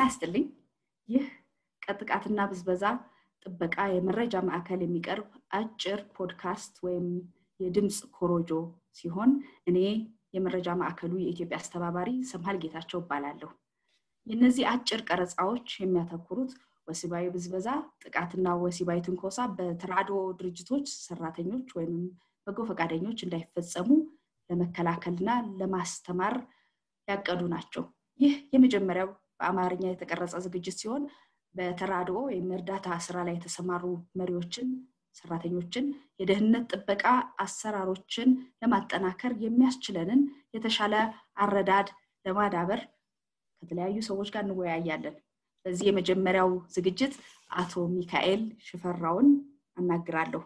ጤና ይስጥልኝ ይህ ከጥቃትና ብዝበዛ ጥበቃ የመረጃ ማዕከል የሚቀርብ አጭር ፖድካስት ወይም የድምጽ ኮሮጆ ሲሆን እኔ የመረጃ ማዕከሉ የኢትዮጵያ አስተባባሪ ሰምሃል ጌታቸው እባላለሁ። የነዚህ አጭር ቀረጻዎች የሚያተኩሩት ወሲባዊ ብዝበዛ ጥቃትና ወሲባዊ ትንኮሳ በተራድኦ ድርጅቶች ሰራተኞች ወይም በጎ ፈቃደኞች እንዳይፈጸሙ ለመከላከልና ለማስተማር ያቀዱ ናቸው። ይህ የመጀመሪያው በአማርኛ የተቀረጸ ዝግጅት ሲሆን በተራድኦ የእርዳታ ስራ ላይ የተሰማሩ መሪዎችን ሰራተኞችን የደህንነት ጥበቃ አሰራሮችን ለማጠናከር የሚያስችለንን የተሻለ አረዳድ ለማዳበር ከተለያዩ ሰዎች ጋር እንወያያለን። በዚህ የመጀመሪያው ዝግጅት አቶ ሚካኤል ሽፈራውን አናግራለሁ።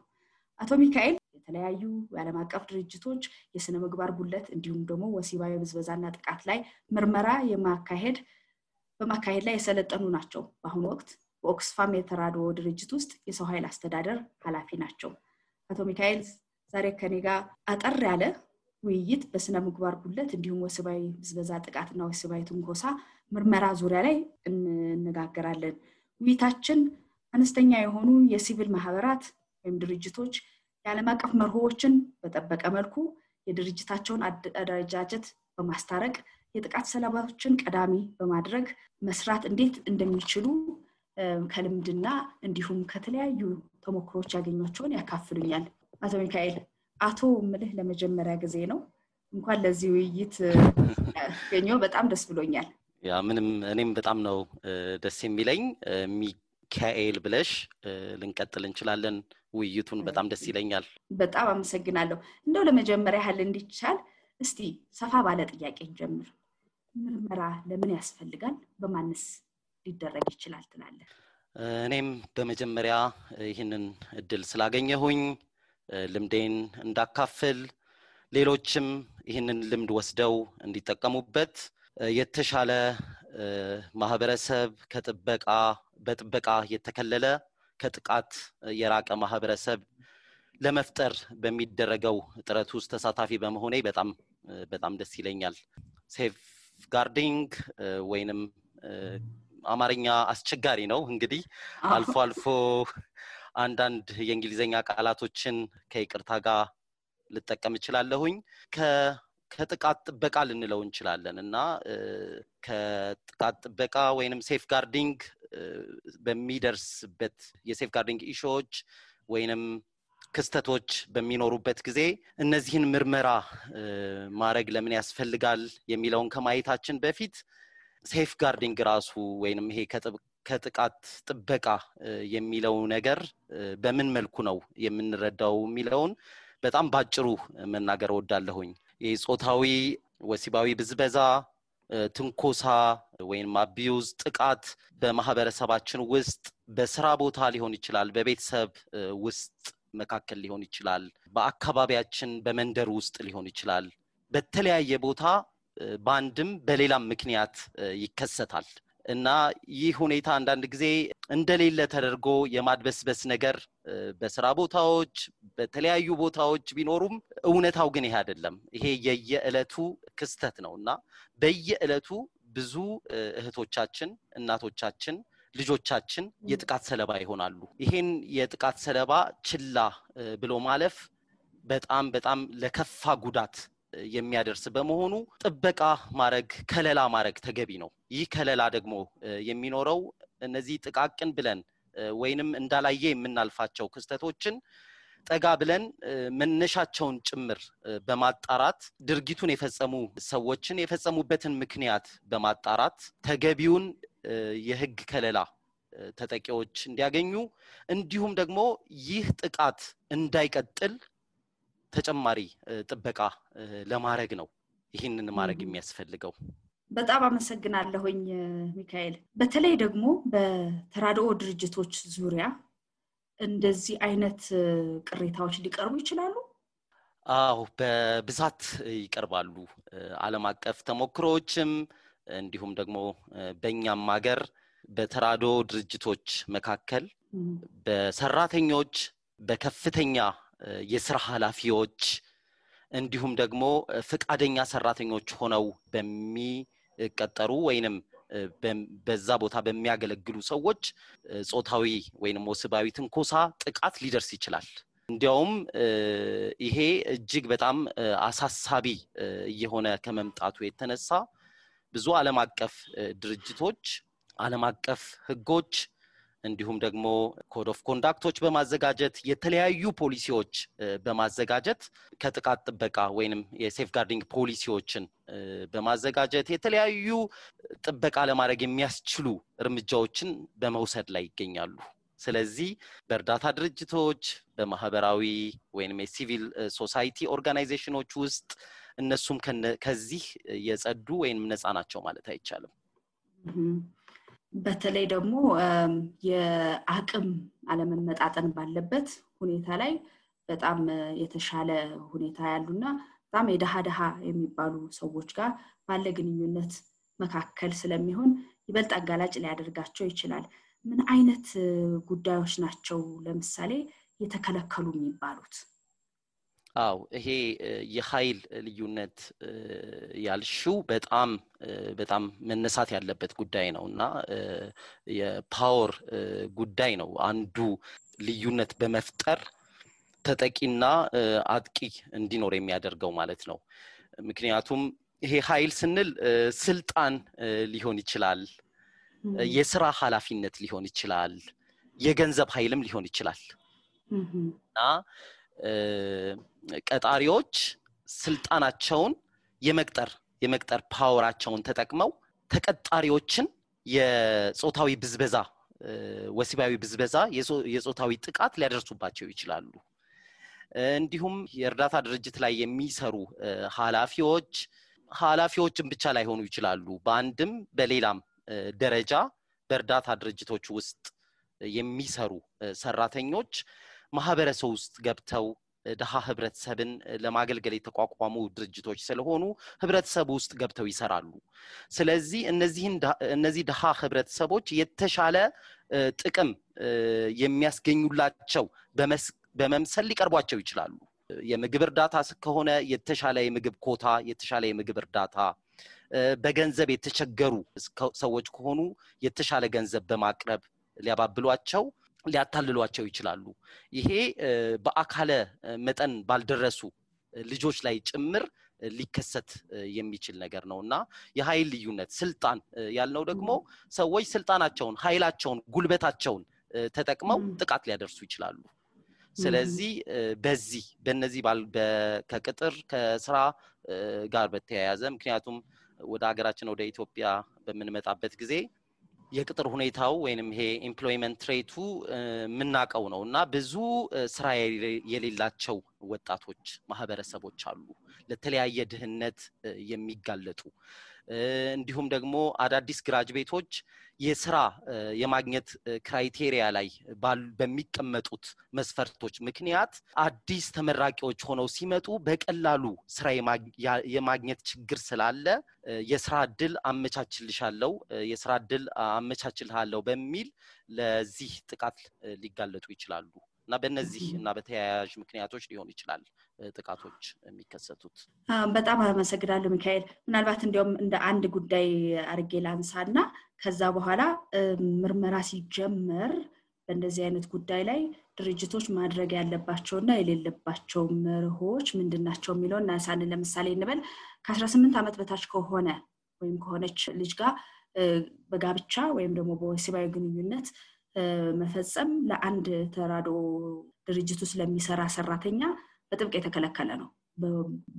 አቶ ሚካኤል የተለያዩ የዓለም አቀፍ ድርጅቶች የስነ ምግባር ጉድለት እንዲሁም ደግሞ ወሲባዊ ብዝበዛና ጥቃት ላይ ምርመራ በማካሄድ ላይ የሰለጠኑ ናቸው። በአሁኑ ወቅት በኦክስፋም የተራድኦ ድርጅት ውስጥ የሰው ኃይል አስተዳደር ኃላፊ ናቸው። አቶ ሚካኤል ዛሬ ከኔ ጋር አጠር ያለ ውይይት በስነ ምግባር ጉድለት እንዲሁም ወሲባዊ ብዝበዛ ጥቃትና ወሲባዊ ትንኮሳ ምርመራ ዙሪያ ላይ እንነጋገራለን። ውይይታችን አነስተኛ የሆኑ የሲቪል ማህበራት ወይም ድርጅቶች የዓለም አቀፍ መርሆዎችን በጠበቀ መልኩ የድርጅታቸውን አደረጃጀት በማስታረቅ የጥቃት ሰለባዎችን ቀዳሚ በማድረግ መስራት እንዴት እንደሚችሉ ከልምድና እንዲሁም ከተለያዩ ተሞክሮች ያገኟቸውን ያካፍሉኛል። አቶ ሚካኤል አቶ ምልህ ለመጀመሪያ ጊዜ ነው። እንኳን ለዚህ ውይይት ገኘው በጣም ደስ ብሎኛል። ያ ምንም እኔም በጣም ነው ደስ የሚለኝ። ሚካኤል ብለሽ ልንቀጥል እንችላለን ውይይቱን በጣም ደስ ይለኛል። በጣም አመሰግናለሁ። እንደው ለመጀመሪያ ያህል እንዲቻል እስቲ ሰፋ ባለ ጥያቄ እንጀምር። ምርመራ ለምን ያስፈልጋል? በማንስ ሊደረግ ይችላል ትላለህ? እኔም በመጀመሪያ ይህንን እድል ስላገኘሁኝ ልምዴን እንዳካፍል ሌሎችም ይህንን ልምድ ወስደው እንዲጠቀሙበት የተሻለ ማህበረሰብ በጥበቃ የተከለለ ከጥቃት የራቀ ማህበረሰብ ለመፍጠር በሚደረገው ጥረት ውስጥ ተሳታፊ በመሆኔ በጣም ደስ ይለኛል። ሴፍ ጋርዲንግ ወይንም አማርኛ አስቸጋሪ ነው እንግዲህ አልፎ አንዳንድ የእንግሊዘኛ ቃላቶችን ከይቅርታ ጋር ልጠቀም እችላለሁኝ። ከጥቃት ጥበቃ ልንለው እንችላለን እና ከጥቃት ጥበቃ ወይንም ሴፍ ጋርዲንግ በሚደርስበት የሴፍ ጋርዲንግ ኢሹዎች ወይንም ክስተቶች በሚኖሩበት ጊዜ እነዚህን ምርመራ ማድረግ ለምን ያስፈልጋል የሚለውን ከማየታችን በፊት ሴፍ ጋርዲንግ ራሱ ወይንም ይሄ ከጥቃት ጥበቃ የሚለው ነገር በምን መልኩ ነው የምንረዳው የሚለውን በጣም ባጭሩ መናገር እወዳለሁኝ። የጾታዊ ወሲባዊ ብዝበዛ ትንኮሳ ወይንም አቢዩዝ ጥቃት በማህበረሰባችን ውስጥ በስራ ቦታ ሊሆን ይችላል፣ በቤተሰብ ውስጥ መካከል ሊሆን ይችላል፣ በአካባቢያችን በመንደር ውስጥ ሊሆን ይችላል። በተለያየ ቦታ በአንድም በሌላም ምክንያት ይከሰታል እና ይህ ሁኔታ አንዳንድ ጊዜ እንደሌለ ተደርጎ የማድበስበስ ነገር በስራ ቦታዎች በተለያዩ ቦታዎች ቢኖሩም እውነታው ግን ይሄ አይደለም። ይሄ የየዕለቱ ክስተት ነውና በየዕለቱ ብዙ እህቶቻችን፣ እናቶቻችን፣ ልጆቻችን የጥቃት ሰለባ ይሆናሉ። ይሄን የጥቃት ሰለባ ችላ ብሎ ማለፍ በጣም ለከፋ ጉዳት የሚያደርስ በመሆኑ ጥበቃ ከለላ ማድረግ ተገቢ ነው። ይህ ከለላ ደግሞ የሚኖረው እነዚህ ጥቃቅን ብለን ወይንም እንዳላየ የምናልፋቸው ክስተቶችን ጠጋ ብለን መነሻቸውን ጭምር በማጣራት ድርጊቱን የፈጸሙ ሰዎችን የፈጸሙበትን ምክንያት በማጣራት ተገቢውን የህግ ከለላ ተጠቂዎች እንዲያገኙ እንዲሁም ደግሞ ይህ ጥቃት እንዳይቀጥል ተጨማሪ ጥበቃ ለማድረግ ነው ይህንን ማድረግ የሚያስፈልገው። በጣም አመሰግናለሁኝ ሚካኤል። በተለይ ደግሞ በተራድኦ ድርጅቶች ዙሪያ እንደዚህ አይነት ቅሬታዎች ሊቀርቡ ይችላሉ? አዎ በብዛት ይቀርባሉ። ዓለም አቀፍ ተሞክሮዎችም እንዲሁም ደግሞ በእኛም ሀገር በተራድኦ ድርጅቶች መካከል በሰራተኞች በከፍተኛ የሥራ ኃላፊዎች እንዲሁም ደግሞ ፍቃደኛ ሰራተኞች ሆነው በሚቀጠሩ ወይንም በዛ ቦታ በሚያገለግሉ ሰዎች ጾታዊ ወይንም ወሲባዊ ትንኮሳ ጥቃት ሊደርስ ይችላል እንዲያውም ይሄ እጅግ በጣም አሳሳቢ የሆነ ከመምጣቱ የተነሳ ብዙ ዓለም አቀፍ ድርጅቶች ዓለም አቀፍ ህጎች እንዲሁም ደግሞ ኮድ ኦፍ ኮንዳክቶች በማዘጋጀት የተለያዩ ፖሊሲዎች በማዘጋጀት ከጥቃት ጥበቃ ወይንም የሴፍጋርዲንግ ፖሊሲዎችን በማዘጋጀት የተለያዩ ጥበቃ ለማድረግ የሚያስችሉ እርምጃዎችን በመውሰድ ላይ ይገኛሉ ስለዚህ በእርዳታ ድርጅቶች በማህበራዊ ወይንም የሲቪል ሶሳይቲ ኦርጋናይዜሽኖች ውስጥ እነሱም ከዚህ የጸዱ ወይንም ነፃ ናቸው ማለት አይቻልም በተለይ ደግሞ የአቅም አለመመጣጠን ባለበት ሁኔታ ላይ በጣም የተሻለ ሁኔታ ያሉና በጣም የደሃ የሚባሉ ሰዎች ጋር ባለ ግንኙነት መካከል ስለሚሆን ይበልጥ አጋላጭ ሊያደርጋቸው ይችላል ምን አይነት ጉዳዮች ናቸው ለምሳሌ የተከለከሉ የሚባሉት አው ይሄ የኃይል ልዩነት ያልሽው በጣም መነሳት ያለበት ጉዳይ ነውና የፓወር ጉዳይ ነው አንዱ ልዩነት በመፍጠር ተጠቂና አጥቂ እንዲኖር የሚያደርገው ማለት ነው ምክንያቱም ይሄ ኃይል ስንል ስልጣን ሊሆን ይችላል የሥራ ኃላፊነት ሊሆን ይችላል የገንዘብ ኃይልም ሊሆን ይችላል እና ቀጣሪዎች ስልጣናቸውን የመቅጠር ፓወራቸውን ተጠቅመው ተቀጣሪዎችን የጾታዊ ብዝበዛ ወሲባዊ ብዝበዛ የጾታዊ ጥቃት ሊያደርሱባቸው ይችላሉ እንዲሁም የእርዳታ ድርጅት ላይ የሚሰሩ ኃላፊዎችን ብቻ ላይ ሆኑ ይችላሉ በአንድም በሌላም ደረጃ በእርዳታ ድርጅቶች ውስጥ የሚሰሩ ሰራተኞች ማህበረሰብ ውስጥ ገብተው ደሃ ህብረተሰብን ለማገልገል የተቋቋሙ ድርጅቶች ስለሆኑ ህብረተሰብ ውስጥ ገብተው ይሰራሉ ስለዚህ እነዚህ ደሃ ህብረተሰቦች የተሻለ ጥቅም የሚያስገኙላቸው በመምሰል ሊቀርቧቸው ይችላሉ የምግብ እርዳታ ከሆነ የተሻለ የምግብ ኮታ የተሻለ የምግብ እርዳታ በገንዘብ የተቸገሩ ሰዎች ከሆኑ የተሻለ ገንዘብ በማቅረብ ሊያባብሏቸው ሊያታልሏቸው ይችላሉ ይሄ በአካለ መጠን ባልደረሱ ልጆች ላይ ጭምር ሊከሰት የሚችል ነገር ነውና የኃይል ልዩነት ስልጣን ያልነው ደግሞ ሰዎች ስልጣናቸውን ኃይላቸውን ጉልበታቸውን ተጠቅመው ጥቃት ሊያደርሱ ይችላሉ ስለዚህ በእነዚህ ከቅጥር ከስራ ጋር በተያያዘ ምክንያቱም ወደ ሀገራችን ወደ ኢትዮጵያ በመንመጣበት ጊዜ የቅጥር ሁኔታው ወይንም ይሄ ኤምፕሎይመንት ሬቱ ምናቀው ነውና ብዙ ስራ የሌላቸው ወጣቶች ማህበረሰቦች አሉ ለተለያየ ድህነት የሚጋለጡ እንዲሁም ደግሞ አዳዲስ ግራጁዌቶች የሥራ የማግኘት ክራይቴሪያ ላይ በሚቀመጡት መስፈርቶች ምክንያት አዲስ ተመራቂዎች ሆነው ሲመጡ በቀላሉ ስራ የማግኘት ችግር ስላለ የሥራ ዕድል አመቻችልሃለሁ በሚል ለዚህ ጥቃት ሊጋለጡ ይችላሉ እና በእነዚህና በተያያዥ ምክንያቶች ሊሆን ይችላል ጥቃቶች የሚከሰቱት በጣም አመሰግናለሁ ሚካኤል ምናልባት እንዲያውም እንደ አንድ ጉዳይ አርጌ ላንሳና ከዛ በኋላ ምርመራ ሲጀመር በእንደዚህ አይነት ጉዳይ ላይ ድርጅቶች ማድረግ ያለባቸውና የሌለባቸው መርሆች ምንድናቸው የሚለውና ሳን ለምሳሌ እንበል ከ18 ዓመት በታች ከሆነ ወይም ከሆነች ልጅ ጋር በጋብቻ ወይም ደግሞ በወሲባዊ ግንኙነት መፈጸም ለአንድ ተራዶ ድርጅቱ ስለሚሰራ ሰራተኛ በጥብቅ የተከለከለ ነው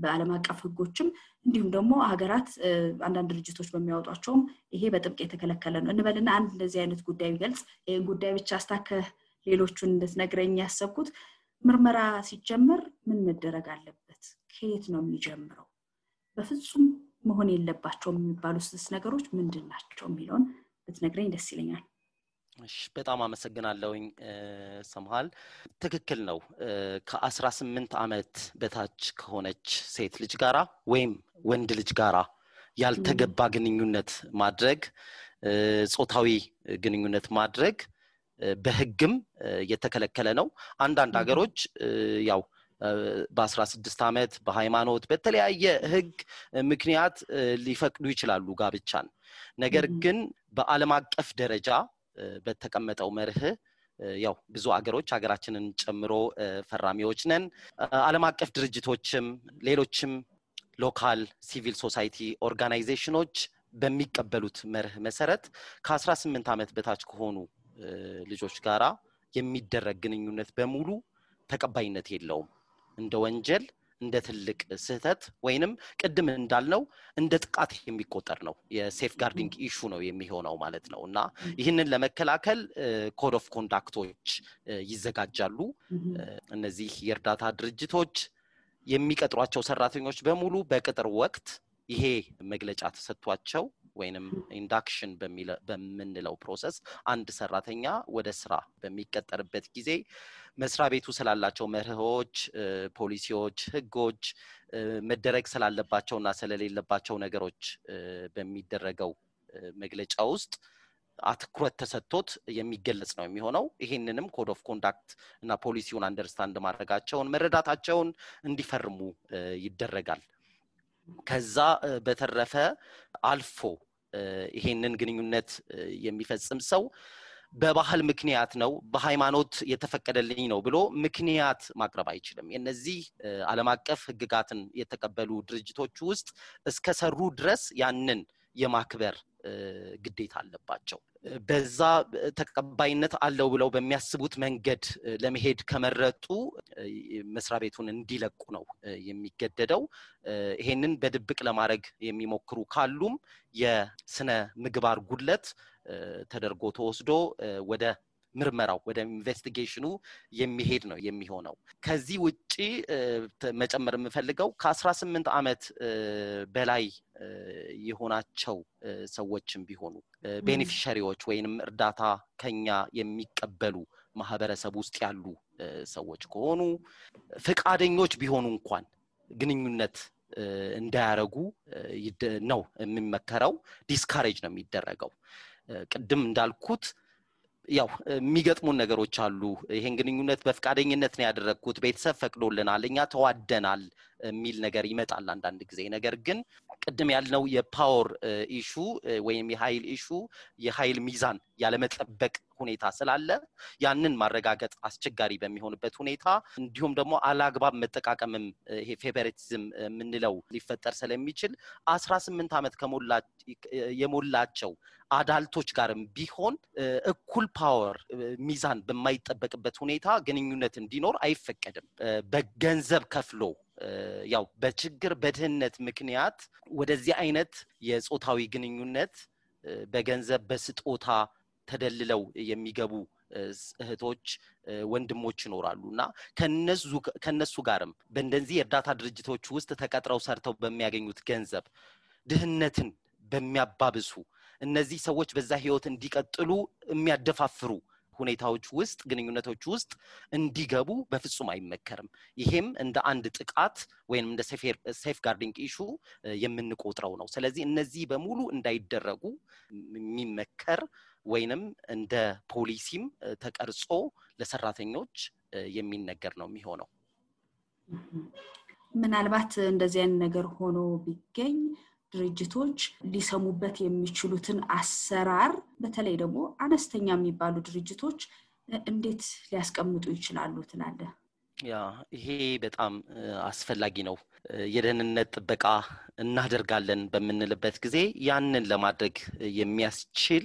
በዓለም አቀፍ ህጎችም እንዲሁም ደግሞ ሀገራት አንዳንድ ድርጅቶች በሚያወጧቸውም ይሄ በጥብቅ የተከለከለ ነው እንበልና አንድ እንደዚህ አይነት ጉዳይ ቢገልጽ ይሄን ጉዳይ ብቻ አስታከ ሌሎቹን እንደነግረኝ ያሰብኩት ምርመራ ሲጀመር ምን መደረግ አለበት ከየት ነው የሚጀምረው በፍጹም መሆን የለባቸውም የሚባሉት ነገሮች ምንድናቸው የሚለውን ብትነግረኝ ደስ ይለኛል እሺ በጣም አመሰግናለሁኝ ሰምሃል ትክክል ነው ከ18 ዓመት በታች ከሆነች ሴት ልጅ ጋራ ወይም ወንድ ልጅ ጋራ ያልተገባ ግንኙነት ማድረግ ጾታዊ ግንኙነት ማድረግ በህግም የተከለከለ ነው አንዳንድ ሀገሮች ያው በ16 ዓመት በሃይማኖት በተለያየ ህግ ምክንያት ሊፈቅዱ ይችላሉ ጋብቻን ነገር ግን በዓለም አቀፍ ደረጃ በተቀመጠው መርህ ያው ብዙ ሀገራችንን ጨምሮ ፈራሚዎች ነን ዓለም አቀፍ ድርጅቶችም ሌሎችም ሎካል ሲቪል ሶሳይቲ ኦርጋናይዜሽኖች በሚቀበሉት መርህ መሰረት ከ18 ዓመት በታች ከሆኑ ልጆች ጋራ የሚደረግ ግንኙነት በሙሉ ተቀባይነት የለውም እንደ ወንጀል እንደ ትልቅ ስህተት ወይንም ቅድም እንዳልነው እንደ ጥቃት የሚቆጠር ነው የሴፍ ጋርዲንግ ኢሹ ነው የሚሆነው ማለት ነውና ይህንን ለመከላከል ኮድ ኦፍ ኮንዳክቶች ይዘጋጃሉ እነዚህ የእርዳታ ድርጅቶች የሚቀጥሯቸው ሰራተኞች በሙሉ በቅጥር ወቅት ይሄ መግለጫ ተሰጥቷቸው ወይንም ኢንዳክሽን በሚለው ፕሮሰስ አንድ ሰራተኛ ወደ ስራ በሚቀጠርበት ጊዜ መስሪያ ቤቱ ስላላቸው መርሆች ፖሊሲዎች ህጎች መደረግ ስላለባቸውና ስለሌለባቸው ነገሮች በሚደረገው መግለጫ ውስጥ አትኩረት ተሰጥቶት የሚገለጽ ነው የሚሆነው ይሄንንም ኮድ ኦፍ ኮንዳክት እና ፖሊሲውን አንደርስታንድ ማድረጋቸውን መረዳታቸውን እንዲፈርሙ ይደረጋል ከዛ በተረፈ አልፎ ይሄንን ግንኙነት የሚፈጽም ሰው በባህል ምክንያት ነው በሃይማኖት የተፈቀደልኝ ነው ብሎ ምክንያት ማቅረብ አይችልም የነዚህ ዓለም አቀፍ ህግጋትን የተቀበሉ ድርጅቶች ውስጥ እስከሰሩ ድረስ ያንን የማክበር ግዴታ አለባቸው በዛ ተቀባይነት አለው ብለው በሚያስቡት መንገድ ለመሄድ ከመረጡ መስሪያ ቤቱን እንዲለቁ ነው የሚገደደው ይሄንን በድብቅ ለማድረግ የሚሞክሩ ካሉም የስነ ምግባር ጉድለት ተደርጎ ተወስዶ ወደ ምርመራው ወደ ኢንቨስቲጌሽኑ የሚሄድ ነው የሚሆነው ከዚህ ውጪ መጨመር የምፈልገው ከ18 ዓመት በላይ የሆናቸው ሰዎችም ቢሆኑ ቤኔፊሻሪዎች ወይንም እርዳታ ከኛ የሚቀበሉ ማህበረሰብ ውስጥ ያሉ ሰዎች ከሆኑ ፍቃደኞች ቢሆኑ እንኳን ግንኙነት እንዳያረጉ ነው የሚመከረው ዲስካሬጅ ነው የሚደረገው ቅድም እንዳልኩት ያው የሚገጥሙን ነገሮች አሉ ይሄን ግንኙነት በፍቃደኝነት ነው ያደረኩት ቤተሰብ ፈቅዶልናል እኛ ተዋደናል የሚል ነገር ይመጣል አንዳንድ ጊዜ ነገር ግን ቅድም ያልነው የፓወር ኢሹ ወይም የኃይል ኢሹ የኃይል ሚዛን ያለመጠበቅ ሁኔታ ስላለ ያንን ማረጋገጥ አስቸጋሪ በሚሆንበት ሁኔታ እንዲሁም ደግሞ አላግባብ መጠቃቀምም ይሄ ፌቨሪቲዝም ምንለው ሊፈጠር ስለሚችል 18 ዓመት የሞላቸው አዳልቶች ጋርም ቢሆን እኩል ፓወር ሚዛን በማይጠበቅበት ሁኔታ ግንኙነት እንዲኖር አይፈቀድም በገንዘብ ከፍሎ ያው በችግር በድህነት ምክንያት ወደዚህ አይነት የጾታዊ ግንኙነት በገንዘብ በስጦታ ተደልለው የሚገቡ እህቶች ወንድሞች ይኖራሉና ከነሱ ጋርም በእንደዚህ የእርዳታ ድርጅቶች ውስጥ ተቀጥረው ሰርተው በሚያገኙት ገንዘብ ድህነትን በሚያባብሱ እነዚህ ሰዎች በዛ ህይወት እንዲቀጥሉ የሚያደፋፍሩ ሁኔታዎች ውስጥ ግንኙነቶች ውስጥ እንዲገቡ በፍጹም አይመከርም ይሄም እንደ አንድ ጥቃት ወይንም እንደ ሴፍ ጋርዲንግ ኢሹ የምንቆጥረው ነው ስለዚህ እነዚህ በሙሉ እንዳይደረጉ የሚመከር ወይንም እንደ ፖሊሲም ተቀርጾ ለሰራተኞች የሚነገር ነው የሚሆነው ምናልባት እንደዚህ አይነት ነገር ሆኖ ቢገኝ ድርጅቶች ሊሰሙበት የሚችሉትን አሰራር በተለይ ደግሞ አነስተኛ የሚባሉ ድርጅቶች እንዴት ሊያስቀምጡ ይችላሉ ትላለህ ያ ይሄ በጣም አስፈላጊ ነው የደህንነት ጥበቃ እናደርጋለን በመንልበት ጊዜ ያንን ለማድረግ የሚያስችል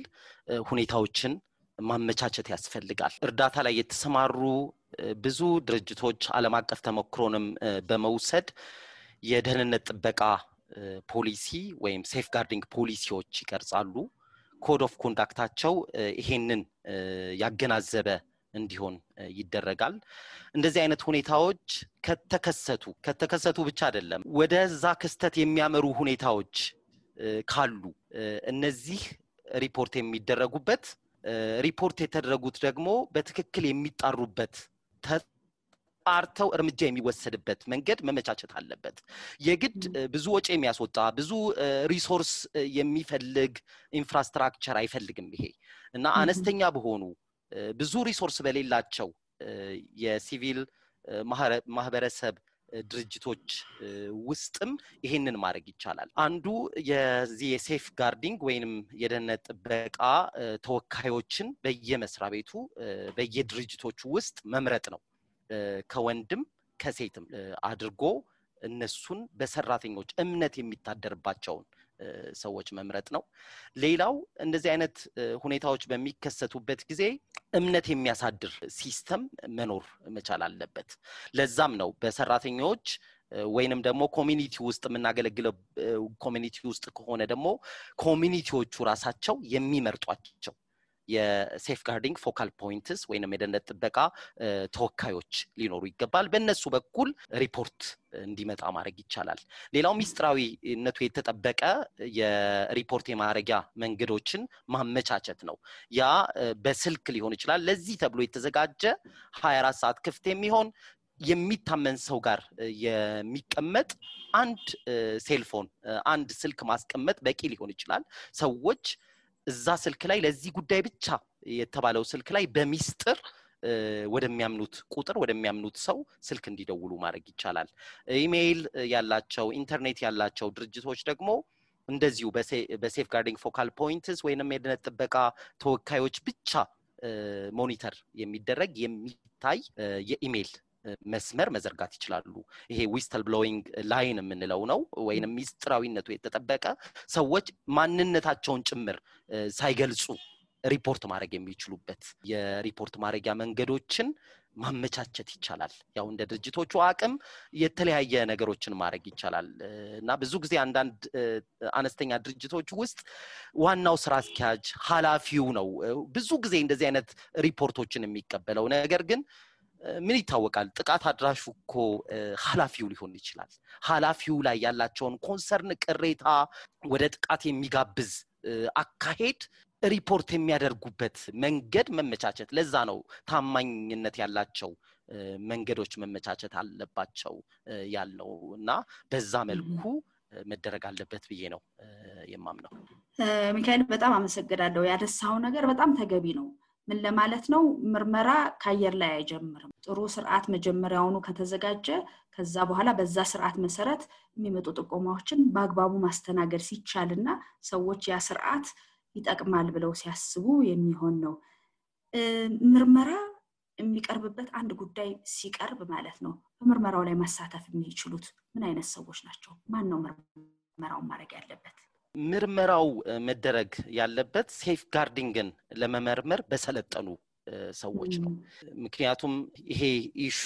ሁኔታዎችን ማመቻቸት ያስፈልጋል እርዳታ ላይ የተሰማሩ ብዙ ድርጅቶች ዓለም አቀፍ ተሞክሮንም በመውሰድ የደህንነት ጥበቃ ፖሊሲ ወይም ሴፍ ጋርዲንግ ፖሊሲዎች ይቀርጻሉ ኮድ ኦፍ ኮንዳክታቸው ይሄንን ያገናዘበ እንዲሆን ይደረጋል እንደዚህ አይነት ሁኔታዎች ከተከሰቱ ብቻ አይደለም ወደዛ ክስተት የሚያመሩ ሁኔታዎች ካሉ እነዚህ ሪፖርት የሚደረጉበት ሪፖርት የተደረጉት ደግሞ በትክክል የሚጣሩበት አርተው እርምጃ የሚወሰድበት መንገድ መመቻቸት አለበት የግድ ብዙ ወጪ የሚያስወጣ ብዙ ሪሶርስ የሚፈልግ ኢንፍራስትራክቸር አይፈልግም ይሄ እና አነስተኛ በሆኑ ብዙ ሪሶርስ በሌላቸው የሲቪል ማህበረሰብ ድርጅቶች ውስጥም ይሄንን ማድረግ ይቻላል። አንዱ የዚህ የሴፍ ጋርዲንግ ወይንም የደህንነት ጥበቃ ተወካዮችን በየመስሪያ ቤቱ በየድርጅቶቹ ውስጥ መምረጥ ነው። ከወንድም ከሴትም አድርጎ እነሱን በሰራተኞች እምነት የሚታደርባቸውን ሰዎች መምረጥ ነው። ሌላው እንደዚህ አይነት ሁኔታዎች በሚከሰቱበት ጊዜ እምነት የሚያሳድር ሲስተም መኖር መቻል አለበት። ለዛም ነው በሰራተኞች ወይንም ደግሞ ኮሚኒቲ ውስጥ የምናገለግለው ኮሚኒቲ ውስጥ ከሆነ ደግሞ ኮሚኒቲዎቹ ራሳቸው የሚመርጧቸው የሴፍ ጋርዲንግ ፎካል ፖይንትስ ወይንም የደህንነት ጥበቃ ተወካዮች ሊኖሩ ይገባል። በእነሱ በኩል ሪፖርት እንዲመጣ ማድረግ ይቻላል። ሌላው ሚስጥራዊነቱ የተጠበቀ የሪፖርት የማድረጊያ መንገዶችን ማመቻቸት ነው። ያ በስልክ ሊሆን ይችላል። ለዚህ ተብሎ የተዘጋጀ 24 ሰዓት ክፍት የሚሆን የሚታመን ሰው ጋር የሚቀመጥ አንድ ሴልፎን አንድ ስልክ ማስቀመጥ በቂ ሊሆን ይችላል። ሰዎች እዛ ስልክ ላይ ለዚህ ጉዳይ ብቻ የተባለው ስልክ ላይ በሚስጥር ወደሚያምኑት ቁጥር ወደሚያምኑት ሰው ስልክ እንዲደውሉ ማድረግ ይቻላል። ኢሜይል ያላቸው ኢንተርኔት ያላቸው ድርጅቶች ደግሞ እንደዚሁ በሴፍ ጋርዲንግ ፎካል ፖይንትስ ወይንም የደህንነት ጥበቃ ተወካዮች ብቻ ሞኒተር የሚደረግ የሚታይ የኢሜይል መስመር መዘርጋት ይችላሉ። ይሄ ዊስትል ብሎዊንግ ላይን የምንለው ነው። ወይንም ሚስጥራዊነቱ የተጠበቀ ሰዎች ማንነታቸውን ጭምር ሳይገልጹ ሪፖርት ማድረግ የሚችሉበት የሪፖርት ማድረጊያ መንገዶችን ማመቻቸት ይቻላል። ያው እንደ ድርጅቶቹ አቅም የተለያየ ነገሮችን ማድረግ ይቻላል እና ብዙ ጊዜ አንዳንድ አነስተኛ ድርጅቶች ውስጥ ዋናው ስራ አስኪያጅ ኃላፊው ነው ብዙ ጊዜ እንደዚህ አይነት ሪፖርቶችን የሚቀበለው። ነገር ግን ምን ይታወቃል ጥቃት አድራሹ እኮ ኃላፊው ሊሆን ይችላል። ኃላፊው ላይ ያላቸውን ኮንሰርን ቅሬታ ወደ ጥቃት የሚጋብዝ አካሄድ ሪፖርት የሚያደርጉበት መንገድ መመቻቸት። ለዛ ነው ታማኝነት ያላቸው መንገዶች መመቻቸት አለባቸው ያለው እና በዛ መልኩ መደረግ አለበት ብዬ ነው የማምነው። ሚካኤል በጣም አመሰግናለሁ። ያነሳው ነገር በጣም ተገቢ ነው። ምን ለማለት ነው? ምርመራ ካየር ላይ አይጀምርም። ጥሩ ስርዓት መጀመሪያውኑ ከተዘጋጀ ከዛ በኋላ በዛ ስርዓት መሰረት የሚመጡ ጥቆማዎችን በአግባቡ ማስተናገድ ሲቻልና ሰዎች ያ ስርዓት ይጠቅማል ብለው ሲያስቡ የሚሆን ነው። ምርመራ የሚቀርብበት አንድ ጉዳይ ሲቀርብ ማለት ነው በምርመራው ላይ ማሳተፍ የሚችሉት ምን አይነት ሰዎች ናቸው? ማን ነው ምርመራውን ማድረግ ያለበት? ምርመራው መደረግ ያለበት ሴፍ ጋርዲንግን ለመመርመር በሰለጠኑ ሰዎች ነው። ምክንያቱም ይሄ ኢሹ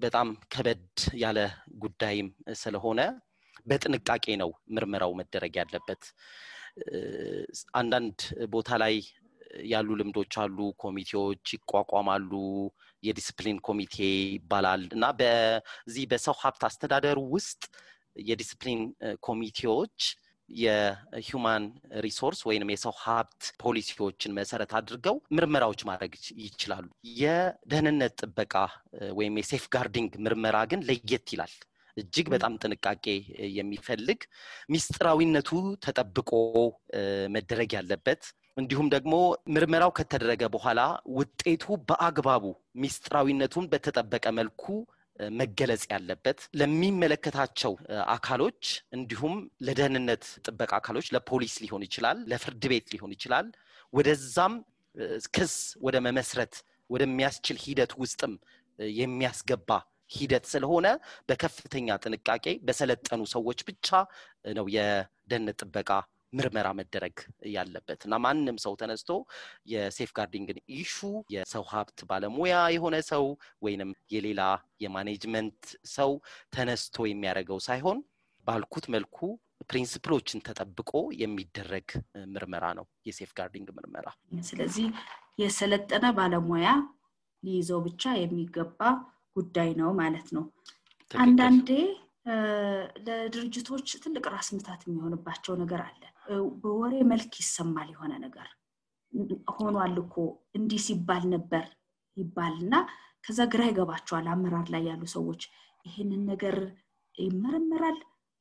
በጣም ከበድ ያለ ጉዳይም ስለሆነ በጥንቃቄ ነው ምርመራው መደረግ ያለበት። አንዳንድ ቦታ ላይ ያሉ ልምዶች አሉ። ኮሚቴዎች ይቋቋማሉ። የዲሲፕሊን ኮሚቴ ይባላል እና በዚህ በሰው ሀብት አስተዳደር ውስጥ የዲሲፕሊን ኮሚቴዎች የሂውማን ሪሶርስ ወይንም የሰው ሀብት ፖሊሲዎችን መሰረት አድርገው ምርመራዎች ማድረግ ይችላሉ። የደህንነት ጥበቃ ወይም የሴፍ ጋርዲንግ ምርመራ ግን ለየት ይላል። እጅግ በጣም ጥንቃቄ የሚፈልግ ሚስጥራዊነቱ ተጠብቆ መደረግ ያለበት እንዲሁም ደግሞ ምርመራው ከተደረገ በኋላ ውጤቱ በአግባቡ ሚስጥራዊነቱን በተጠበቀ መልኩ መገለጽ ያለበት ለሚመለከታቸው አካሎች እንዲሁም ለደህንነት ጥበቃ አካሎች ለፖሊስ ሊሆን ይችላል፣ ለፍርድ ቤት ሊሆን ይችላል። ወደዛም ክስ ወደ መመስረት ወደሚያስችል ሂደት ውስጥም የሚያስገባ ሂደት ስለሆነ በከፍተኛ ጥንቃቄ በሰለጠኑ ሰዎች ብቻ ነው የደህንነት ጥበቃ ምርመራ መደረግ ያለበት እና ማንንም ሰው ተነስቶ የሴፍ ጋርዲንግን ኢሹ የሰው ሀብት ባለሙያ የሆነ ሰው ወይንም የሌላ የማኔጅመንት ሰው ተነስቶ የሚያደርገው ሳይሆን ባልኩት መልኩ ፕሪንሲፕሎችን ተጠብቆ የሚደረግ ምርመራ ነው የሴፍ ጋርዲንግ ምርመራ። ስለዚህ የሰለጠነ ባለሙያ ሊይዘው ብቻ የሚገባ ጉዳይ ነው ማለት ነው። አንዳንዴ ለድርጅቶች ትልቅ ራስ ምታት የሚሆንባቸው ነገር አለ። በወሬ መልክ ይሰማል የሆነ ነገር ሆኗል እኮ እንዲህ ሲባል ነበር ይባልና ከዛ ግራ ይገባቸዋል አመራር ላይ ያሉ ሰዎች ይሄንን ነገር ይመረመራል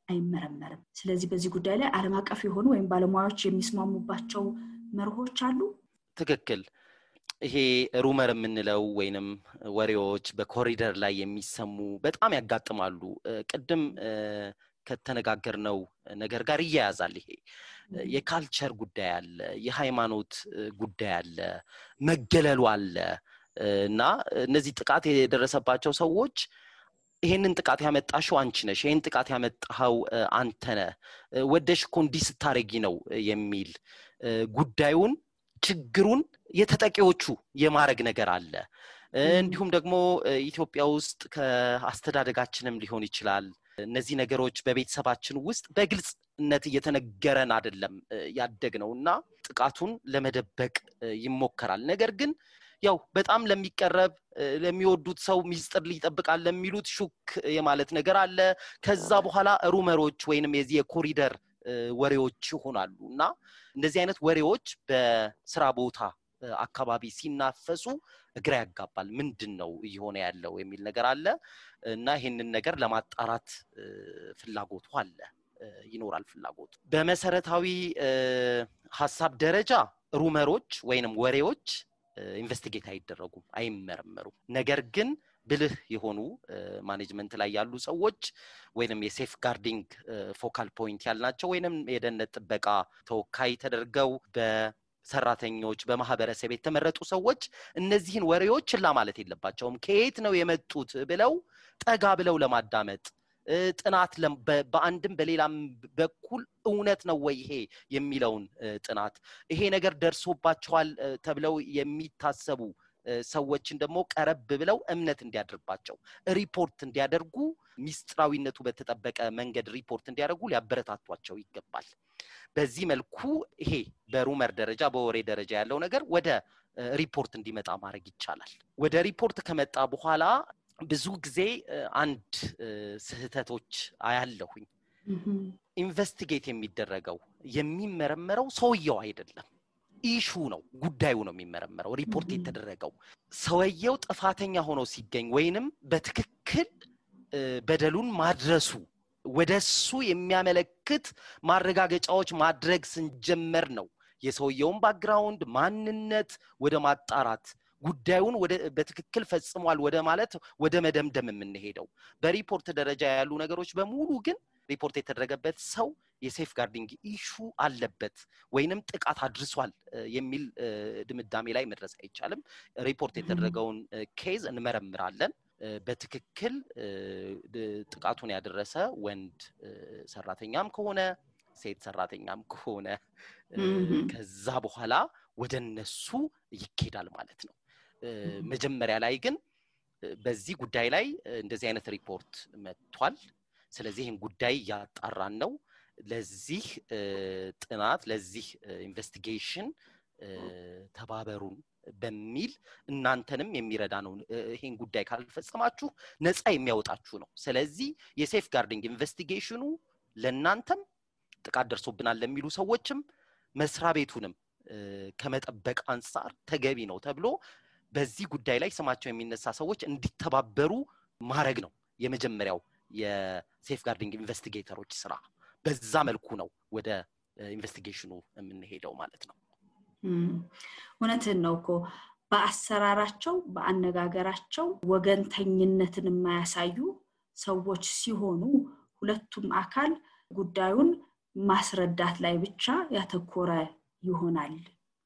አይመረመርም። ስለዚህ በዚህ ጉዳይ ላይ ዓለም አቀፍ የሆኑ ወይም ባለሙያዎች የሚስማሙባቸው መርሆች አሉ። ትክክል። ይሄ ሩመር የምንለው ወይንም ወሬዎች በኮሪደር ላይ የሚሰሙ በጣም ያጋጥማሉ። ቅድም ከተነጋገርነው ነገር ጋር ይያያዛል። ይሄ የካልቸር ጉዳይ አለ፣ የሃይማኖት ጉዳይ አለ፣ መገለሉ አለ እና እነዚህ ጥቃት የደረሰባቸው ሰዎች ይሄንን ጥቃት ያመጣሽው አንቺ ነሽ፣ ይሄን ጥቃት ያመጣው አንተ ነህ፣ ወደሽ እኮ እንዲህ ስታረጊ ነው የሚል ጉዳዩን ችግሩን የተጠቂዎቹ የማረግ ነገር አለ። እንዲሁም ደግሞ ኢትዮጵያ ውስጥ ከአስተዳደጋችንም ሊሆን ይችላል እነዚህ ነገሮች በቤተሰባችን ውስጥ በግልጽነት እየተነገረን አይደለም ያደግነውና ጥቃቱን ለመደበቅ ይሞከራል። ነገር ግን ያው በጣም ለሚቀርብ ለሚወዱት ሰው ሚስጥር ሊጠብቃል ለሚሉት ሹክ የማለት ነገር አለ። ከዛ በኋላ ሩመሮች ወይንም የዚህ የኮሪደር ወሬዎች ይሆናሉና እንደዚህ አይነት ወሬዎች በስራ ቦታ አካባቢ ሲናፈሱ እግራ ያጋባል። ምንድነው እየሆነ ያለው የሚል ነገር አለ እና ይሄንን ነገር ለማጣራት ፍላጎቱ አለ ይኖራል ፍላጎቱ። በመሰረታዊ ሐሳብ ደረጃ ሩመሮች ወይንም ወሬዎች ኢንቨስቲጌት አይደረጉም፣ አይመረመሩም። ነገር ግን ብልህ የሆኑ ማኔጅመንት ላይ ያሉ ሰዎች ወይንም የሴፍ ጋርዲንግ ፎካል ፖይንት ያልናቸው ወይንም የደህንነት ጥበቃ ተወካይ ተደርገው በሰራተኞች በማህበረሰብ የተመረጡ ሰዎች እነዚህን ወሬዎች ችላ ማለት የለባቸውም። ከየት ነው የመጡት ብለው ጠጋ ብለው ለማዳመጥ ጥናት በአንድም በሌላም በኩል እውነት ነው ወይ ይሄ የሚለውን ጥናት ይሄ ነገር ደርሶባቸዋል ተብለው የሚታሰቡ ሰዎችን ደግሞ ቀረብ ብለው እምነት እንዲያደርባቸው ሪፖርት እንዲያደርጉ ሚስጥራዊነቱ በተጠበቀ መንገድ ሪፖርት እንዲያደርጉ ሊያበረታቷቸው ይገባል። በዚህ መልኩ ይሄ በሩመር ደረጃ በወሬ ደረጃ ያለው ነገር ወደ ሪፖርት እንዲመጣ ማድረግ ይቻላል። ወደ ሪፖርት ከመጣ በኋላ ብዙ ጊዜ አንድ ስህተቶች አያለሁኝ። ኢንቨስቲጌት የሚደረገው የሚመረመረው ሰውየው አይደለም፣ ኢሹ ነው፣ ጉዳዩ ነው የሚመረመረው። ሪፖርት የተደረገው ሰውየው ጥፋተኛ ሆኖ ሲገኝ ወይንም በትክክል በደሉን ማድረሱ ወደሱ የሚያመለክት ማረጋገጫዎች ማድረግ ስንጀምር ነው የሰውየውን ባክግራውንድ ማንነት ወደ ማጣራት ጉዳዩን በትክክል ፈጽሟል ወደ ማለት ወደ መደምደም የምንሄደው። በሪፖርት ደረጃ ያሉ ነገሮች በሙሉ ግን ሪፖርት የተደረገበት ሰው የሴፍ ጋርዲንግ ኢሹ አለበት ወይንም ጥቃት አድርሷል የሚል ድምዳሜ ላይ መድረስ አይቻልም። ሪፖርት የተደረገውን ኬዝ እንመረምራለን። በትክክል ጥቃቱን ያደረሰ ወንድ ሰራተኛም ከሆነ ሴት ሰራተኛም ከሆነ ከዛ በኋላ ወደነሱ ይኬዳል ማለት ነው። መጀመሪያ ላይ ግን በዚህ ጉዳይ ላይ እንደዚህ አይነት ሪፖርት መጥቷል፣ ስለዚህ ይሄን ጉዳይ ያጣራን ነው፣ ለዚህ ጥናት ለዚህ ኢንቨስቲጌሽን ተባበሩን በሚል እናንተንም የሚረዳ ነው። ይሄን ጉዳይ ካልፈጸማችሁ ነፃ የሚያወጣችሁ ነው። ስለዚህ የሴፍ ጋርዲንግ ኢንቨስቲጌሽኑ ለናንተም ጥቃት ደርሶብናል ለሚሉ ሰዎችም መስሪያ ቤቱንም ከመጠበቅ አንፃር ተገቢ ነው ተብሎ በዚህ ጉዳይ ላይ ስማቸው የሚነሳ ሰዎች እንዲተባበሩ ማድረግ ነው የመጀመሪያው የሴፍ ጋርዲንግ ኢንቨስቲጌተሮች ስራ። በዛ መልኩ ነው ወደ ኢንቨስቲጌሽኑ የምንሄደው ማለት ነው። እውነትን ነው እኮ በአሰራራቸው በአነጋገራቸው ወገንተኝነትን የማያሳዩ ሰዎች ሲሆኑ ሁለቱም አካል ጉዳዩን ማስረዳት ላይ ብቻ ያተኮረ ይሆናል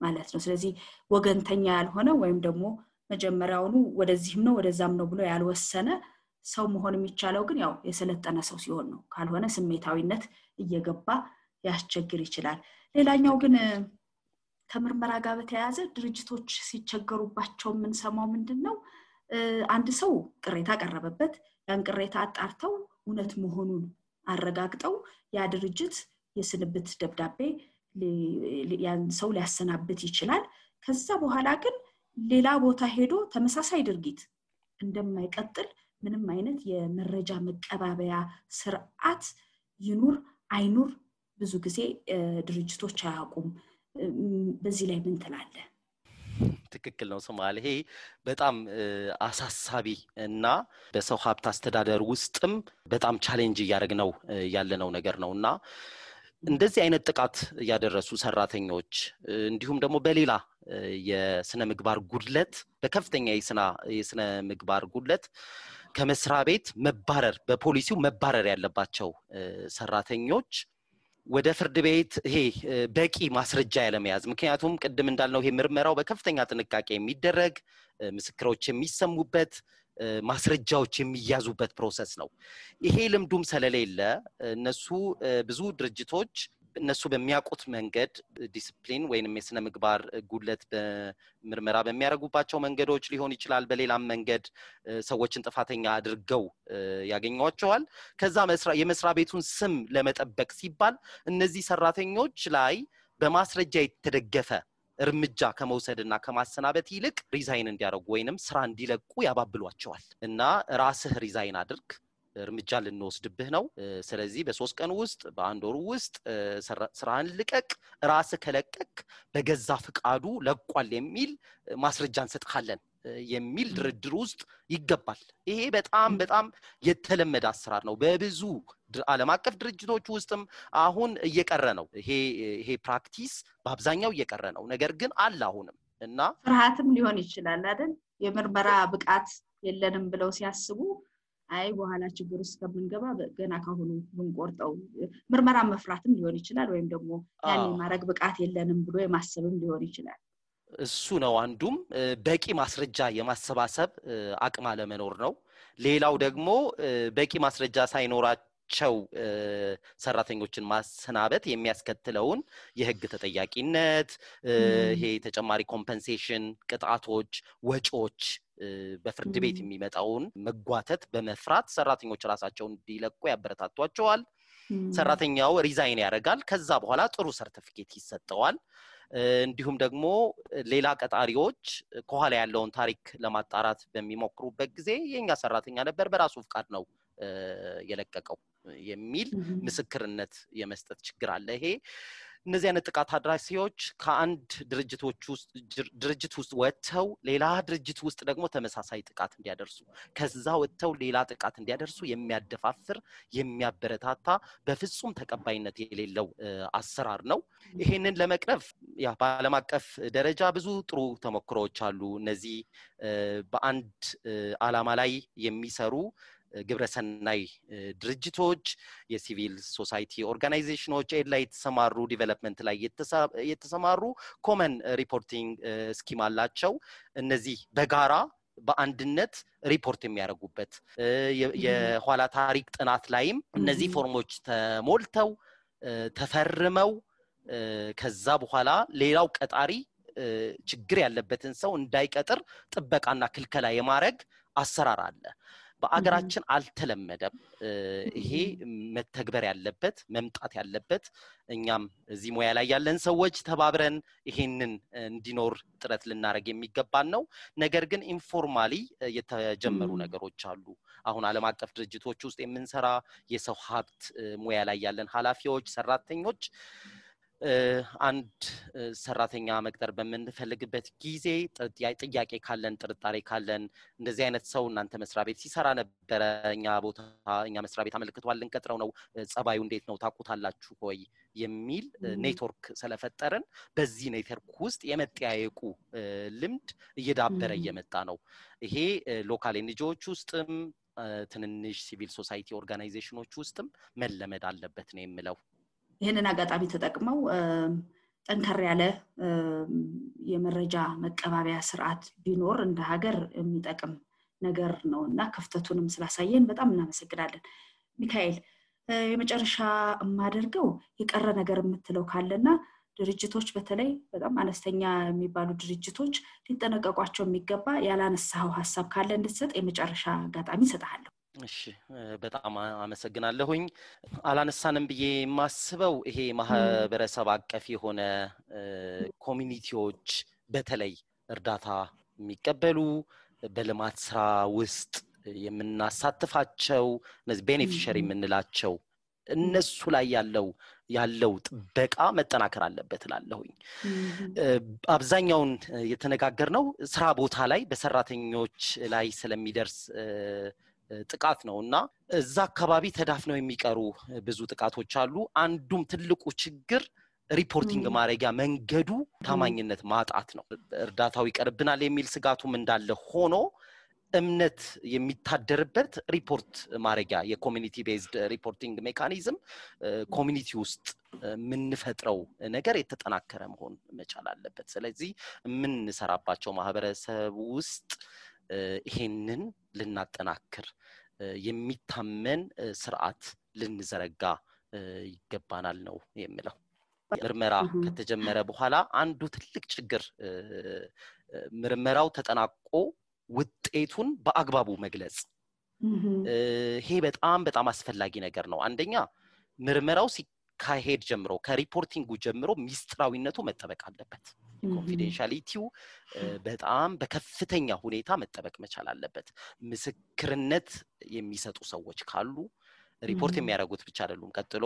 ማለት ነው። ስለዚህ ወገንተኛ ያልሆነ ወይም ደግሞ መጀመሪያውኑ ወደዚህም ነው ወደዛም ነው ብሎ ያልወሰነ ሰው መሆን የሚቻለው ግን ያው የሰለጠነ ሰው ሲሆን ነው። ካልሆነ ስሜታዊነት እየገባ ያስቸግር ይችላል። ሌላኛው ግን ከምርመራ ጋር በተያያዘ ድርጅቶች ሲቸገሩባቸው ምን ሰማው ምንድነው አንድ ሰው ቅሬታ ቀረበበት፣ ያን ቅሬታ አጣርተው እውነት መሆኑን አረጋግጠው ያ ድርጅት የስንብት ደብዳቤ ያን ሰው ሊያሰናብት ይችላል። ከዛ በኋላ ግን ሌላ ቦታ ሄዶ ተመሳሳይ ድርጊት እንደማይቀጥል ምንም አይነት የመረጃ መቀባበያ ስርዓት ይኑር አይኑር ብዙ ጊዜ ድርጅቶች አያውቁም። በዚህ ላይ ምን ትላለህ? ትክክል ነው ሶማሌ። ይሄ በጣም አሳሳቢ እና በሰው ሀብት አስተዳደር ውስጥም በጣም ቻሌንጅ ያደረግነው ያለነው ነገር ነውና እንደዚህ አይነት ጥቃት ያደረሱ ሰራተኞች እንዲሁም ደግሞ በሌላ የስነ ምግባር ጉድለት በከፍተኛ የስነ ምግባር ጉድለት ከመስሪያ ቤት መባረር በፖሊሲው መባረር ያለባቸው ሰራተኞች ወደ ፍርድ ቤት ይሄ በቂ ማስረጃ ያለመያዝ ምክንያቱም ቅድም እንዳልነው ይሄ ምርመራው በከፍተኛ ጥንቃቄ የሚደረግ ምስክሮች የሚሰሙበት ማስረጃዎች የሚያዙበት ፕሮሰስ ነው ይሄ ልምዱም ስለሌለ እነሱ ብዙ ድርጅቶች እነሱ በሚያውቁት መንገድ ዲሲፕሊን ወይንም የስነ ምግባር ጉድለት በምርመራ በሚያደርጉባቸው መንገዶች ሊሆን ይችላል በሌላም መንገድ ሰዎችን ጥፋተኛ አድርገው ያገኙዋቸዋል ከዛ የመስሪያ ቤቱን ስም ለመጠበቅ ሲባል እነዚህ ሰራተኞች ላይ በማስረጃ የተደገፈ እርምጃ ከመውሰድና ከማሰናበት ይልቅ ሪዛይን እንዲያደርጉ ወይንም ስራ እንዲለቁ ያባብሏቸዋል እና ራስህ ሪዛይን አድርግ እርምጃ ልንወስድብህ ነው ስለዚህ በ3 ቀን ውስጥ በአንድ ወር ውስጥ ስራን ልቀቅ ራስህ ከለቀቅ በገዛ ፍቃዱ ለቋል የሚል ማስረጃ እንሰጥካለን የሚል ድርድር ውስጥ ይገባል ይሄ በጣም የተለመደ አሰራር ነው በብዙ ዓለም አቀፍ ድርጅቶች ውስጥም አሁን እየቀረ ነው ይሄ ፕራክቲስ በአብዛኛው እየቀረ ነው ነገር ግን አለ አሁንም እና ፍርሃትም ሊሆን ይችላል አይደል የምርመራ ብቃት የለንም ብለው ሲያስቡ አይ በኋላ ችግር ውስጥ ከመንገባ ገና ካሁኑ ብንቆርጠው ምርመራ መፍራትም ሊሆን ይችላል ወይም ደግሞ ያኔ ማረግ ብቃት የለንም ብሎ የማሰብም ሊሆን ይችላል እሱ ነው አንዱም በቂ ማስረጃ የማሰባሰብ አቅም አለመኖር ነው ሌላው ደግሞ በቂ ማስረጃ ሳይኖራቸው ሰራተኞችን ማሰናበት የሚያስከትለውን የህግ ተጠያቂነት ይሄ ተጨማሪ ኮምፐንሴሽን ቅጣቶች ወጪዎች በፍርድ ቤት የሚመጣውን መጓተት በመፍራት ሰራተኞች ራሳቸውን እንዲለቁ ያበረታቷቸዋል ሰራተኛው ሪዛይን ያደርጋል ከዛ በኋላ ጥሩ ሰርቲፊኬት ይሰጠዋል እንዲሁም ደግሞ ሌላ ቀጣሪዎች ከኋላ ያለውን ታሪክ ለማጣራት በሚሞክሩበት ጊዜ የኛ ሰራተኛ ነበር በራሱ ፍቃድ ነው የለቀቀው የሚል ምስክርነት የመስጠት ችግር አለ ይሄ እነዚህ አይነት ጥቃት አድራሲዎች ከአንድ ድርጅት ውስጥ ወጥተው ሌላ ድርጅት ውስጥ ደግሞ ተመሳሳይ ጥቃት እንዲያደርሱ ከዛ ወጥተው ሌላ ጥቃት እንዲያደርሱ የሚያደፋፍር የሚያበረታታ በፍጹም ተቀባይነት የሌለው አሰራር ነው ይሄንን ለመቅረፍ ያ በዓለም አቀፍ ደረጃ ብዙ ጥሩ ተሞክሮዎች አሉ እነዚህ በአንድ ዓላማ ላይ የሚሰሩ ግብረሰናይ ድርጅቶች የሲቪል ሶሳይቲ ኦርጋናይዜሽኖች ላይ የተሰማሩ ዲቨሎፕመንት ላይ የተሰማሩ ኮመን ሪፖርቲንግ ስኪም አላቸው እነዚህ በጋራ በአንድነት ሪፖርት የሚያደርጉበት የኋላ ታሪክ ጥናት ላይም እነዚህ ፎርሞች ተሞልተው ተፈርመው ከዛ በኋላ ሌላው ቀጣሪ ችግር ያለበትን ሰው እንዳይቀጥር ጥበቃና ክልከላ የማድረግ አሰራር አለ በአገራችን አልተለመደም ይሄ መተግበር ያለበት መምጣት ያለበት እኛም እዚህ ሙያ ላይ ያለን ሰዎች ተባብረን ይሄንን እንዲኖር ጥረት ልናረግ የሚገባን ነው ነገር ግን ኢንፎርማሊ የተጀመሩ ነገሮች አሉ አሁን ዓለም አቀፍ ድርጅቶች ውስጥ የምንሰራ የሰው ሀብት ሙያ ላይ ያለን ኃላፊዎች ሰራተኞች አንድ ሰራተኛ መቅጠር በመንፈልግበት ጊዜ ጥያቄ ካለን ጥርጣሬ ካለን እንደዚህ አይነት ሰው እናንተ መስሪያ ቤት ሲሰራ ነበር እኛ መስሪያ ቤት አመልክቷል እንቀጥረው ነው ጸባዩ እንዴት ነው ታቁታላችሁ ሆይ የሚል ኔትወርክ ስለፈጠርን በዚህ ኔትወርክ ውስጥ የመጠያየቁ ልምድ እየዳበረ እየመጣ ነው ይሄ ሎካል ኤንጂኦዎች ውስጥም ትንንሽ ሲቪል ሶሳይቲ ኦርጋናይዜሽኖች ውስጥም መለመድ አለበት ነው የምለው ይሄንን አጋጣሚ ተጠቅመው ጠንከር ያለ የመረጃ መቀባበያ ስርዓት ቢኖር እንደ ሀገር የሚጠቅም ነገር ነውና ክፍተቱንም ስላሳየን በጣም እናመሰግናለን ሚካኤል የመጨረሻ ማደርገው የቀረ ነገር የምትለው ካለና ድርጅቶች በተለይ በጣም አነስተኛ የሚባሉ ድርጅቶች ሊጠነቀቋቸው የሚገባ ያላነሳው ሐሳብ ካለ እንድትሰጥ የመጨረሻ አጋጣሚ ሰጣለሁ እሺ በጣም አመሰግናለሁኝ አላነሳንም ብዬ ማስበው ይሄ ማህበረሰብ አቀፍ የሆነ ኮሚኒቲዎች በተለይ እርዳታ የሚቀበሉ በልማት ስራ ውስጥ የምናሳትፋቸው እነዚህ ቤኔፊሻሪ የምንላቸው እነሱ ላይ ያለው ጥበቃ መጠናከር አለበት ላለሁኝ አብዛኛውን የተነጋገርነው ስራ ቦታ ላይ በሰራተኞች ላይ ስለሚደርስ ጥቃት ነውና እዛ አካባቢ ተዳፍነው የሚቀሩ ብዙ ጥቃቶች አሉ አንዱም ትልቁ ችግር ሪፖርቲንግ ማድረጊያ መንገዱ ታማኝነት ማጣት ነው እርዳታው ይቀርብናል የሚል ስጋቱም እንዳለ ሆኖ እምነት የሚታደርበት ሪፖርት ማድረጊያ የኮሚኒቲ ቤዝድ ሪፖርቲንግ ሜካኒዝም ኮሚኒቲ ውስጥ ምንፈጥረው ነገር የተጠናከረ መሆን መቻል አለበት ስለዚህ ምን እንሰራባቸው ማህበረሰብ ውስጥ ይሄንን ልናጠናክር የሚታመን ስርዓት ልንዘረጋ ይገባናል ነው የሚለው ምርመራ ከተጀመረ በኋላ አንዱ ትልቅ ችግር ምርመራው ተጠናቆ ውጤቱን በአግባቡ መግለጽ ይሄ በጣም አስፈላጊ ነገር ነው አንደኛ ምርመራው ሲካሄድ ጀምሮ ከሪፖርቲንጉ ጀምሮ ሚስጥራዊነቱ መጠበቅ አለበት ኮንፊደንሻሊቲው በጣም በከፍተኛ ሁኔታ መጠበቅ መቻል አለበት ምስክርነት የሚሰጡ ሰዎች ካሉ ሪፖርት የሚያደርጉት ብቻ አይደሉም ቀጥሎ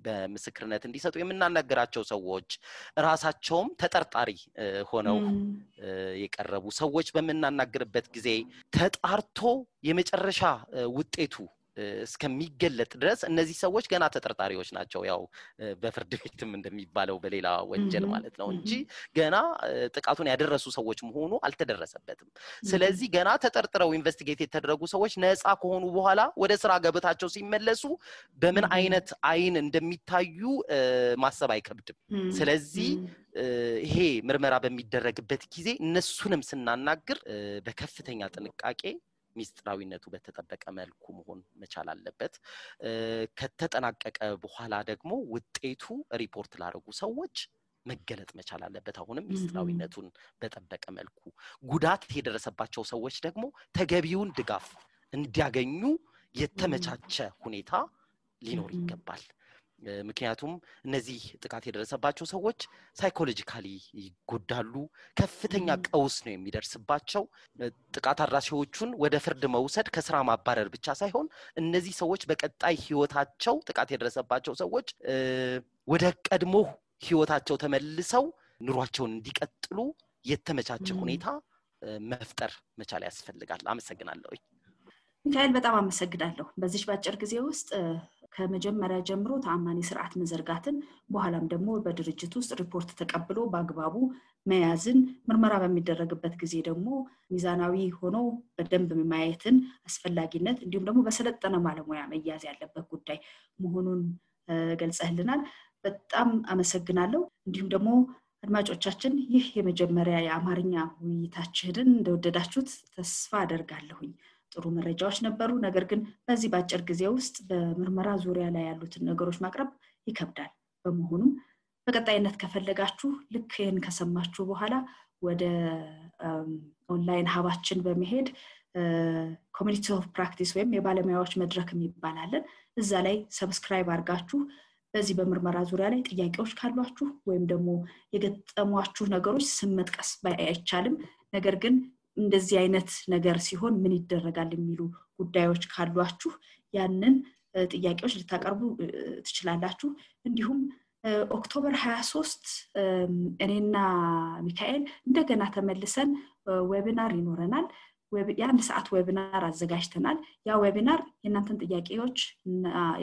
በምስክርነት እንዲሰጡ የምናናገራቸው ሰዎች ራሳቸውም ተጠርጣሪ ሆነው የቀረቡ ሰዎች በመናናገርበት ጊዜ ተጣርቶ የመጨረሻ ውጤቱ እስከሚገለጥ ድረስ እነዚህ ሰዎች ገና ተጠርጣሪዎች ናቸው ያው በፍርድ ቤትም እንደሚባለው በሌላ ወንጀል ማለት ነው እንጂ ገና ጥቃቱን ያደረሱ ሰዎች መሆኑ አልተደረሰበትም ስለዚህ ገና ተጠርጥረው ኢንቨስቲጌት የተደረጉ ሰዎች ነፃ ከሆኑ በኋላ ወደ ስራ ገበታቸው ሲመለሱ በምን አይነት አይን እንደሚታዩ ማሰብ አይከብድም ስለዚህ ይሄ ምርመራ በሚደረግበት ጊዜ እነሱንም ስናናግር በከፍተኛ ጥንቃቄ ሚስጥራዊነቱ በተጠበቀ መልኩ መሆን መቻል አለበት ከተጠናቀቀ በኋላ ደግሞ ውጤቱ ሪፖርት ላደረጉ ሰዎች መገለጥ መቻል አለበት አሁንም ሚስጥራዊነቱን በተጠበቀ መልኩ ጉዳት የደረሰባቸው ሰዎች ደግሞ ተገቢውን ድጋፍ እንዲያገኙ የተመቻቸ ሁኔታ ሊኖር ይገባል ምክንያቱም እነዚህ ጥቃት የደረሰባቸው ሰዎች ሳይኮሎጂካሊ ይጎዳሉ ከፍተኛ ቀውስ ነው የሚደርስባቸው ጥቃት አድራሾቹን ወደ ፍርድ መውሰድ ከስራ ማባረር ብቻ ሳይሆን እነዚህ ሰዎች በቀጣይ ህይወታቸው ጥቃት የደረሰባቸው ሰዎች ወደ ቀድሞ ህይወታቸው ተመልሰው ኑሯቸውን እንዲቀጥሉ የተመቻቸ ሁኔታ መፍጠር መቻል ያስፈልጋል አመሰግናለሁ ሚካኤል በጣም አመሰግናለሁ በዚህ ባጭር ጊዜ ውስጥ ከመጀመሪያ ጀምሮ ተአማኒ ስርዓት መዘርጋትን በኋላም ደግሞ በድርጅት ውስጥ ሪፖርት ተቀብሎ በአግባቡ መያዝን ምርመራ በሚደረግበት ጊዜ ደግሞ ሚዛናዊ ሆኖ በደንብ ማየትን አስፈላጊነት እንዲሁም ደግሞ በሰለጠነ ባለሙያ መያዝ ያለበት ጉዳይ መሆኑን ገልጸህልናል በጣም አመሰግናለሁ እንዲሁም ደግሞ አድማጮቻችን ይህ የመጀመሪያ የአማርኛ ውይይታችንን እንደወደዳችሁት ተስፋ አደርጋለሁኝ ጥሩ መረጃዎች ነበሩ ነገር ግን በዚህ ባጭር ጊዜ ውስጥ በምርመራ ዙሪያ ላይ ያሉትን ነገሮች ማቅረብ ይከብዳል በመሆኑም በቀጣይነት ከፈለጋችሁ ልክ ይሄን ከሰማችሁ በኋላ ወደ ኦንላይን ሀባችን በመሄድ ኮሚኒቲ ኦፍ ፕራክቲስ ወይም የባለሙያዎች መድረክ የሚባላለን እዛ ላይ ሰብስክራይብ አድርጋችሁ በዚህ በምርመራ ዙሪያ ላይ ጥያቄዎች ካሏችሁ ወይም ደግሞ የገጠሟችሁ ነገሮች ስም መጥቀስ አይቻልም ነገር ግን እንደዚህ አይነት ነገር ሲሆን ምን ይደረጋል የሚሉ ጉዳዮች ካሏችሁ ያንን ጥያቄዎች ልታቀርቡ ትችላላችሁ እንዲሁም ኦክቶበር 23 እኔና ሚካኤል እንደገና ተመልሰን ዌቢናር ይኖረናል ያን ሰዓት ዌቢናር አዘጋጅተናል ያ ዌቢናር የእናንተን ጥያቄዎች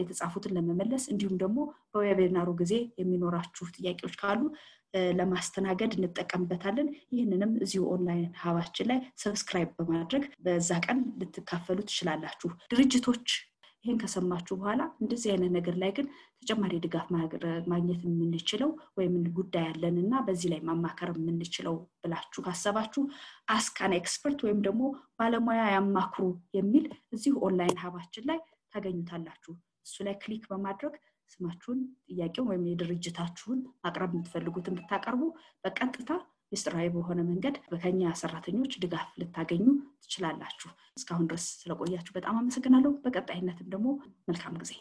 የተጻፉትን ለመመለስ እንዲሁም ደግሞ በዌቢናሩ ጊዜ የሚኖራችሁ ጥያቄዎች ካሉ ለማስተናገድ እንጠቀምበታለን ይህንንም እዚሁ ኦንላይን ሀባችን ላይ ሰብስክራይብ በማድረግ በዛ ቀን ልትካፈሉ ትችላላችሁ ድርጅቶች ይሄን ከሰማችሁ በኋላ እንደዚህ አይነት ነገር ላይ ግን ተጨማሪ ድጋፍ ማግኘት የምንችለው ወይም ጉዳይ ያለንና በዚህ ላይ ማማከር የምንችለው ብላችሁ ካሰባችሁ አስካን ኤክስፐርት ወይም ደግሞ ባለሙያ ያማክሩ የሚል እዚሁ ኦንላይን ሀባችን ላይ ታገኙታላችሁ እሱ ላይ ክሊክ በማድረግ ስማችሁን ጥያቄውን ወይም የድርጅታችሁን አቅራብ የምትፈልጉትን ብታቀርቡ በቀጥታ ሚስጥራዊ በሆነ መንገድ በከኛ ሰራተኞች ድጋፍ ልታገኙ ትችላላችሁ እስካሁን ድረስ ስለቆያችሁ በጣም አመሰግናለሁ በቀጣይነትም ደግሞ መልካም ጊዜ